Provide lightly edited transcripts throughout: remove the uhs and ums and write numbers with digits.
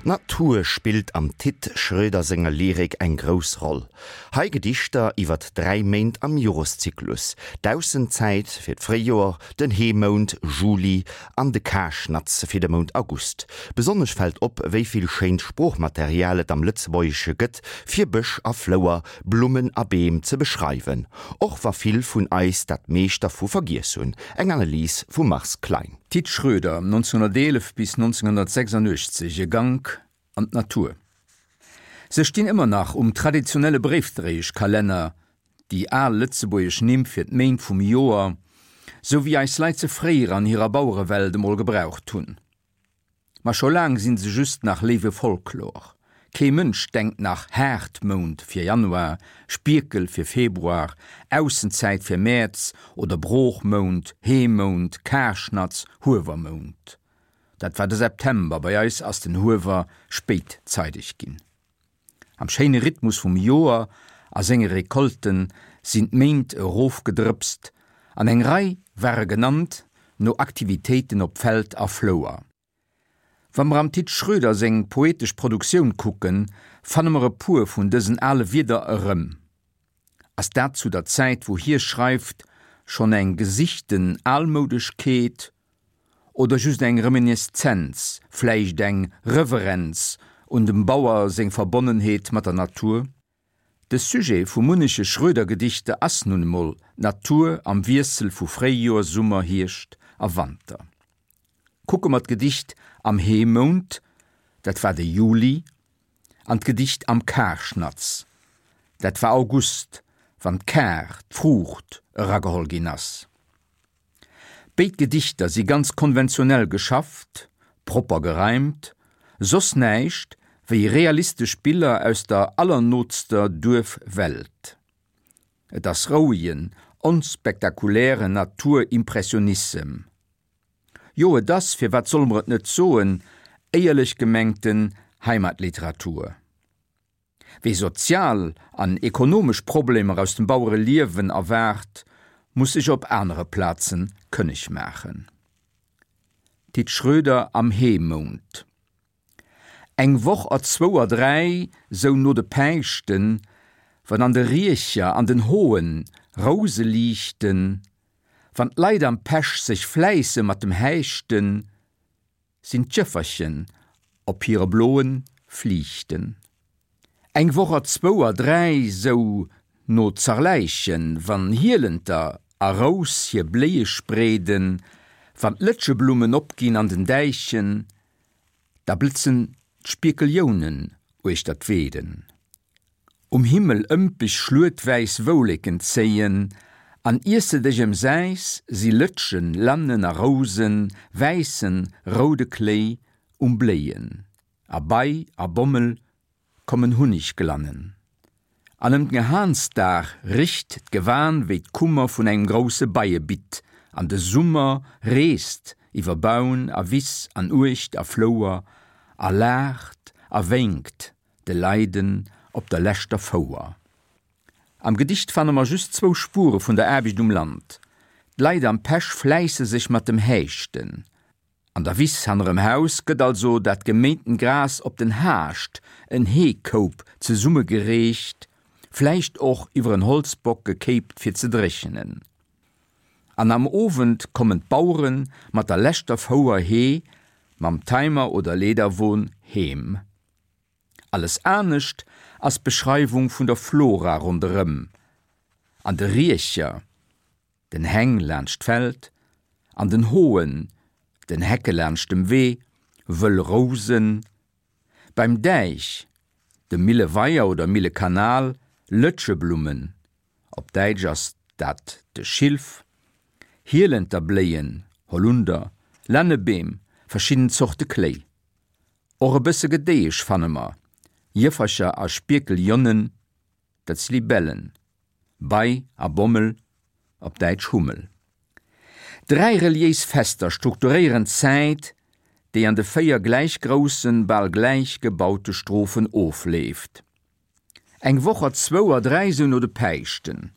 D'Natur spillt am Tit Schroeder senger Lyrik eng grouss Roll. Hei Gedichter iwwert 3 Méint am Joreszyklus, d'Aussenzäit fir d'Fréijoer, den Heemount, Juli, an de Karschnatz fir de Mount August. Besonnesch fält op, wéi vill schéint Sproochmaterial et am Lëtzebuergesche gëtt, fir Bësch a Flouer, Blummen a Beem ze beschreiwen, och wa vill vun eis dat meescht dervu vergiess hunn. Eng Analys vum Mars Klein. Tit Schroeder, 1911 bis 1986, E Gank an d'Natur. Se stinn ëmmer nach um traditionelle Bréifdréieschkalenner, déi al lëtzebuergesch Nimm fir d'Méint vum Joer, sou wéi eis Leit se fréier an hirer Bauerewelt emol gebraucht hunn. Ma scho laang sinn se just nach léiwe Folklor. Kee Mënsch denkt nach Haardmount fir Januar, Spierkel fir Februar, Aussenzäit fir Mäerz oder Broochmount, Heemount, Karschnatz, Huewermount. Dat war de September, bei eis ass den Huewer spéit zeideg ginn. Am schéine Rhythmus vum Joer a senge Recolten sinn d'Méint erofgedrëpst an eng Rei ware genannt no Aktivitéiten op Feld a Flouer. Wa mer am Tit Schroeder seng poetesch Produktioun kucken, fanne mer e puer vun dësen ale Wierder erëm. Ass dat zu der Zäit wou hie schreift schonn eng gesichten Almoudeschkeet oder just eng Reminiszenz, vläicht eng Reverenz un dem Bauer seng Verbonnenheet mat der Natur? De Sujet vu munneche Schroeder-Gedichter ass nun emol d'Natur am Wiessel vu Fréijoer, Summer, Hierscht a Wanter. Kucke mer d'Gedicht Am Heemount, dat war de Juli, an d'Gedicht Am Karschnatz, dat war August, wann d'Kar, d'Fruucht, erageholl ginn ass. Béid Gedichter si ganz konventionell geschafft, propper gereimt, soss näischt wéi realistesch Biller aus der allernootster Duerfwelt. Et ass rouegen, onspektakulären Naturimpressionissem. Jo, et ass, firwat solle mer et net soen, éierlech gemengten Heimatliteratur. Wie sozial an ekonomesch Problemer aus dem Bauereliewen erwaart, muss sech op anere Plaze kënneg maachen. Tit Schroeder am Heemount Eng Woch er zwou er dräi, sou no de Päischten, wann an de Riecher an den Hoen Rouse liichten, wann d'Leit am Pesch sech fläisse mat dem Häischten, Sinn d'Jëfferchen op hire bloen Fliichten. Eng Woch er zwou er dräi, sou no Zarläichen, wann Hielenter a Rous hir Bléie spreeden, wann d'Lëtscheblummen opginn an den Däichen, da blëtzen d'Spierkeljounen uechter d'Weeden. Um Himmel ëmpeg schluetwäiss Wouleken zéien, an iers de dech emsäis, si Lëtschen, Lannen a Rousen, wäissen, roude Kléi um Bléien, a Bei a Bommel kommen Hunnigglannen. An ëm den Gehansdag richt d'Gewan wéi d'Kummer vun engem grousse Beiebitt, an de Summer reest iwwer Baun a Wiss an Uecht a Flouer a laacht a wénkt de Leiden op der leschter Fouer. Am Gedicht fanne mer just zwou Spure vun der Aarbecht um Land, D'Leit am Pesch fläisse sech mat dem Häischten. An der Wiss hannerem Haus gëtt also dat geméinten Gras op den Haascht, en Heekoup, zesummegereecht, vläicht och iwwer en Holzbock gekéipt fir ze dréchenen. An am Owend kommen d'Bauere mat der leschter Fouer Hee mam Timer oder Leederwon heem. Alles anescht ass d'Beschreiwung vun der Flora ronderëm, an de Riecher, den Häng laanscht d'Feld, an den Hoen, den Hecke laanscht dem Wee, wëll Rousen, beim Däich, dem Milleweier oder Millekanal, Lëtscheblummen, op Däitsch ass dat de Schilf, Hielenterbléien, Holunder, Lännebeem, verschidden Zorte Kléi. Och e bësse Gedéiesch fanne mer, Jëffercher a Spierkeljonnen, dat si Libellen, Bei a Bommel, op Däitsch Hummel. Dräi reliéis Fester strukturéieren d'Zäit, déi an de 4 gläich groussen, bal gläich gebaute Strophen ofleeft. Eng Woch er zwou er dräi sou no de Päischten,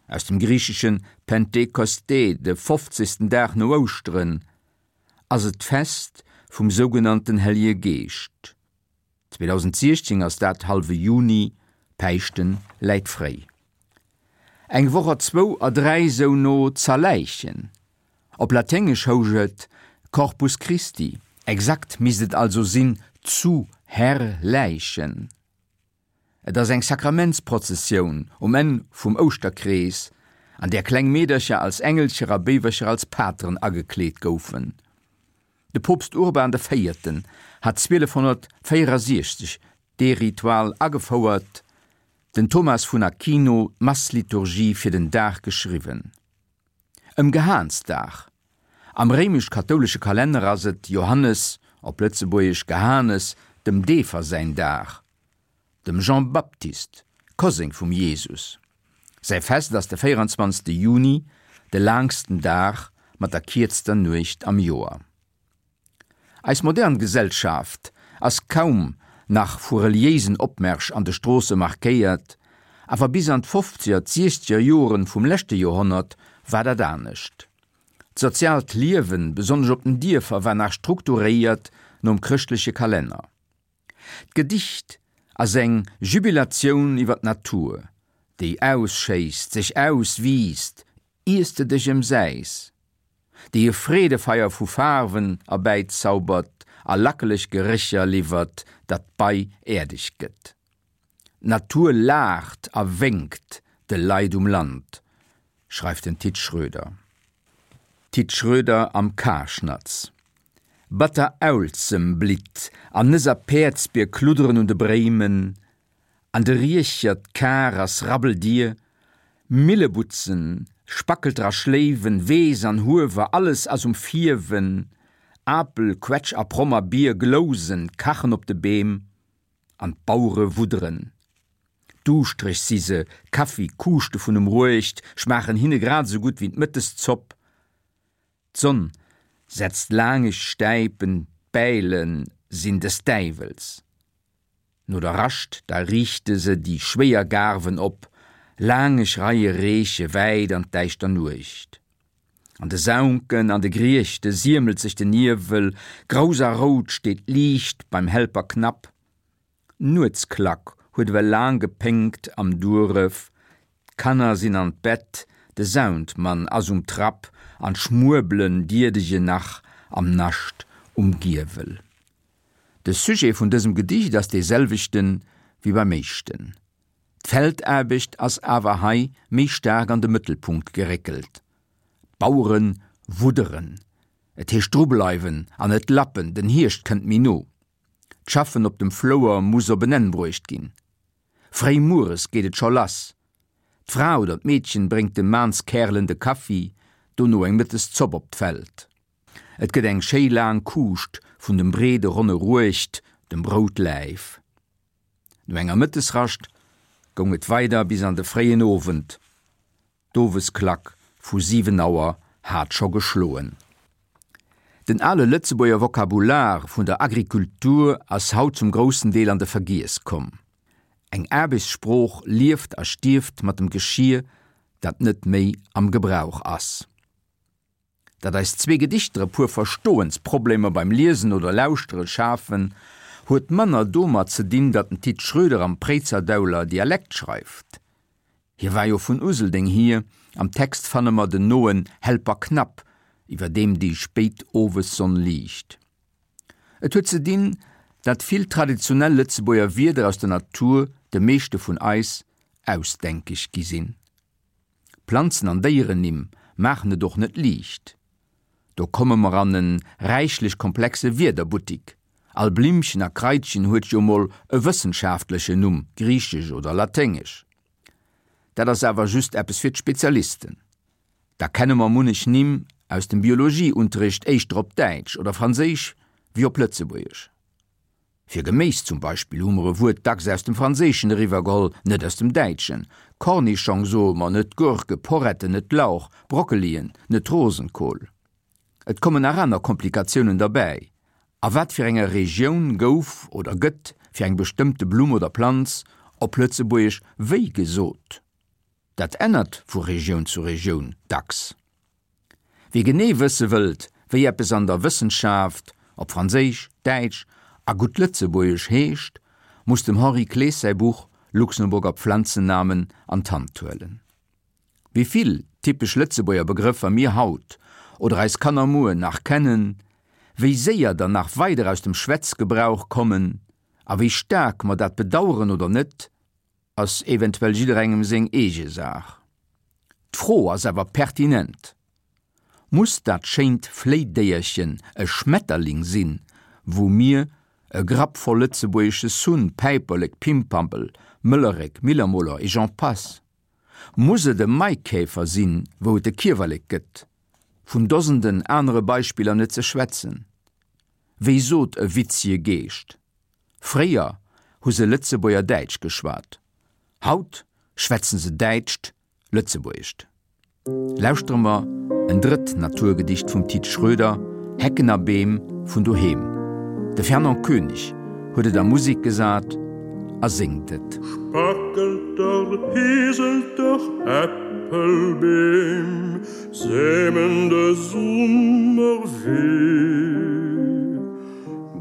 aus dem griicheschen Pentekoste, de fofzegsten Dag no Ouschteren, ass et d'Fest vum sougenannten Hellege Geescht. 2016 ass dat hallwe Juni, Päischten läit fréi. Eng Woch a zwou a dräi sou no Zerläichen. Op Laténgesch housch et Corpus Christi, exakt misst et also sinn zu Herrläichen. Et ass eng Sakramentsprozessioun um Enn vum Ouschterkrees, an där kleng Meedercher als Engelcher a Béiwercher als Pateren agekleet goufen. De Poopst Urban de Véierten hat 1264 dee Ritual agefouert, den Thomas vun Aquino d'Massliturgie fir den Dag geschriwwen. Ëm Gehaansdag. Am réimesch-kathoulesche Kalenner ass et Johannes, op Lëtzebuergesch Gehanes, dem Deefer säin Dag. Dem Jean Baptiste, Koseng vum Jesus, säi Fest ass de 24. Juni, de laangsten Dag mat der kierzter Nuecht am Joer. Eis modern Gesellschaft ass kaum nach vu reliéisen Opmärsch an de Stroosse markéiert, awer bis an d'Fofzeger, d'Siechzeger Joren vum leschte Joerhonnert war dat anescht. D'soziaalt Liewen, besonnesch op den Dierfer, war nach strukturéiert nom chrëschtleche Kalenner. D'Gedicht ass eng Jubilatioun iwwer d'Natur, déi ausschéisst, sech auswiisst, iers de dech emsäis. déi e Freedefeier vu Faarwen erbäizaubert a lackeleg Gerécher liwwert, datt d'Bei äerdeg gëtt. D'Natur laacht a wénkt de Leit um Land, schreift den Tit Schroeder. Tit Schroeder am Karschnatz. Batter Aulzem blitt an Nëss a Päerdsbier kludderen un de Bréimen, An de Riecher d'Kar ass rabbeldier, Millebutzen, Spackelter a Schléiwen, Weess an Huewer, alles ass um Fierwen, Apel, Quetsch a Promm a Bier glousen, kachen op de Beem, an d'Bauere wudderen. Duuschtreg si se, Kaffi, Kuuschte vun um Ruecht schmaachen hinne grad esou gutt wéi d'Mëtteszopp. D'Sonn setzt laangeg Stäipen, d'Bäile sinn des Däiwels. No der Rascht da riichte se déi schwéier Gaarwen op, laangeg Reie reeche wäit an d'däischter Nuecht. An de Saunken, an de Griechte siemelt sech den Niewel, grouss a rout steet d'Liicht beim Helperknapp. D'Nuetsklack huet ewell laang gepéngt am Dueref, d'Kanner sinn an d'Bett, de Soundmann ass um Trapp an d'Schmuebelen dierdegen nach am Nascht um Giewel. De Sujet vun dësem Gedicht ass dee selwechte wéi beim éischten. D'Feldaarbecht ass awer hei méi staark an de Mëttelpunkt geréckelt. D'Bauere wudderen. Et heescht drubleiwen an net lappen, den Hierscht kënnt méi no. D'Schaffen op dem Flouer muss op en Enn bruecht ginn. Fréi mueres geet et scho lass. D'Fra oder d'Meedchen bréngt de Maanskärelen de Kaffi, dono eng Mëtteszopp op d'Feld. Et gëtt eng schéi laang Kuuscht vun dem breede ronne Ruecht, dem Broutläif. No enger Mëttesrascht goung et weider bis an de fréien Owend. D'Owesklack vu 7 Auer hat scho geschloen. Den ale Lëtzebuerger Vokabular vun der Agrikultur ass haut zum groussen Deel an de Vergiess komm. Eng Aarbechtssprooch lieft a stierft mat dem Geschier, dat net méi am Gebrauch ass. Datt eis zwee Gedichter e puer Verstoensproblemer beim Liesen oder Lauschtere schafen, huet manner domat ze dinn, datt den Tit Schroeder am Préizerdauler Dialekt schreift. Hie war jo vun Useldeng hier, am Text fanne mer den noen Helperknapp, iwwer deem déi spéit Owessonn liicht. Et huet ze dinn, datt vill traditionell Lëtzebuerger Wierder aus der Natur de meeschte vun eis ausdenkeg gi sinn. Planzen an Déierennimm maachen et och net liicht. Do komme mer an en räichlech komplexe Wierderbuttik. All Blimmchen a Kraitchen huet jo mol e wëssenschaftlechen Numm, griichesch oder laténgesch. Dat ass awer just eppes fir d'Spezialisten. Da kenne mer munnech Nimm aus dem Biologieunterricht éischter op Däitsch oder Franséisch wéi op Lëtzebuergesch. Fir Geméis zum Beispill hu mer e Wuert dacks aus dem Franséischen eriwwergeholl, net aus dem Däitschen. Cornischong soe mer, net Gurke, Porretten, net Lauch, Brockelien, net Rosenkohl. Et kommen nach aner Komplikatiounen derbäi. A wat fir enger Regioun gouf oder gëtt fir eng bestëmmte Blumm oder Planz op Lëtzebuergesch wéi gesot? Dat ännert vu Regioun zu Regioun dacks. Wie genee wësse wëllt, wéi eppes an der Wëssenschaft op Franséisch, Däitsch a gutt Lëtzebuergesch heescht, muss dem Henri Klees säi Buch Luxemburger Pflanzennamen an d'Hand huelen. Wéi vill typesch Lëtzebuerger Begrëffer mir haut oder eis Kanner muer nach kennen, wéi séier der nach weider aus dem Schwätzgebrauch kommen a wéi staark mer dat bedaueren oder net, ass eventuell jidderengem seng eege Saach. D'Fro ass awer pertinent, Muss dat schéint Fléidéierchen e Schmetterling sinn, wou mir e Grapp voll lëtzebuergesche Sunn, Päiperlek, Pimpampel, Möllerek, Millermoler et j'en passe? Muss et e Maikäfer sinn, wou et de Kiewerlek gëtt? Vun Dosenden anere Beispiller net ze schwätzen. Wéi sot e witzege Geescht? Fréier hu se Lëtzebuerger Däitsch geschwat, haut schwätzen se Däitscht Lëtzebuergescht. Lauschtere mer en drëtt Naturgedicht vum Tit Schroeder, Hecken a Beem vun doheem. De Fernand Koenig huet et a Musek gesat a séngt et. Spackelter, Heselter, Äppelbeem, Semen de Summer weh.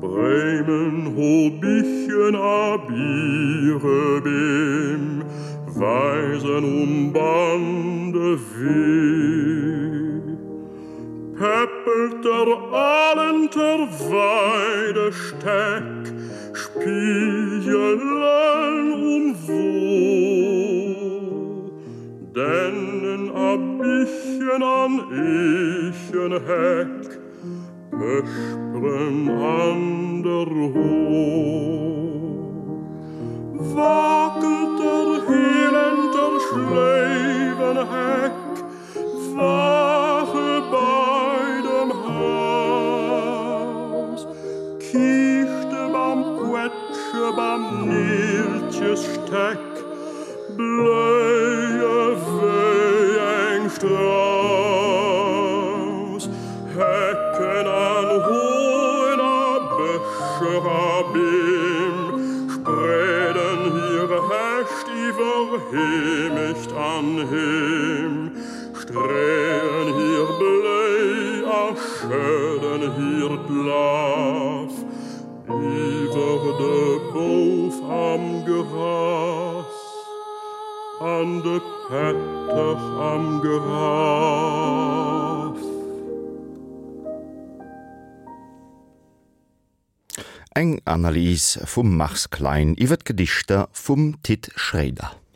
Bréimen, Hobichen a Birebeem weisen um Bann de Wee. Päppelter, Alenter, Weidestäck spiegelen um Woo. Dennen a Bichen an Eechenheck Pësperen an der Ho. Wackelt der Heelenter Schléiwenheck, Wache bei dem Haus, Kiischtebam, Quetschebam, Neeltjesstäck, Bléie wéi eng Strauss. Hecken an Hoen a Bëscher a Beem spreeden hir Häscht iwwer Heemecht an Heem, streeën hir Bléi a schëdden hiert Laf iwwer de Bouf am Gras an de Pätter am Graf. Eng Analys vum Mars Klein iwwer d'Gedichter vum Tit Schréider.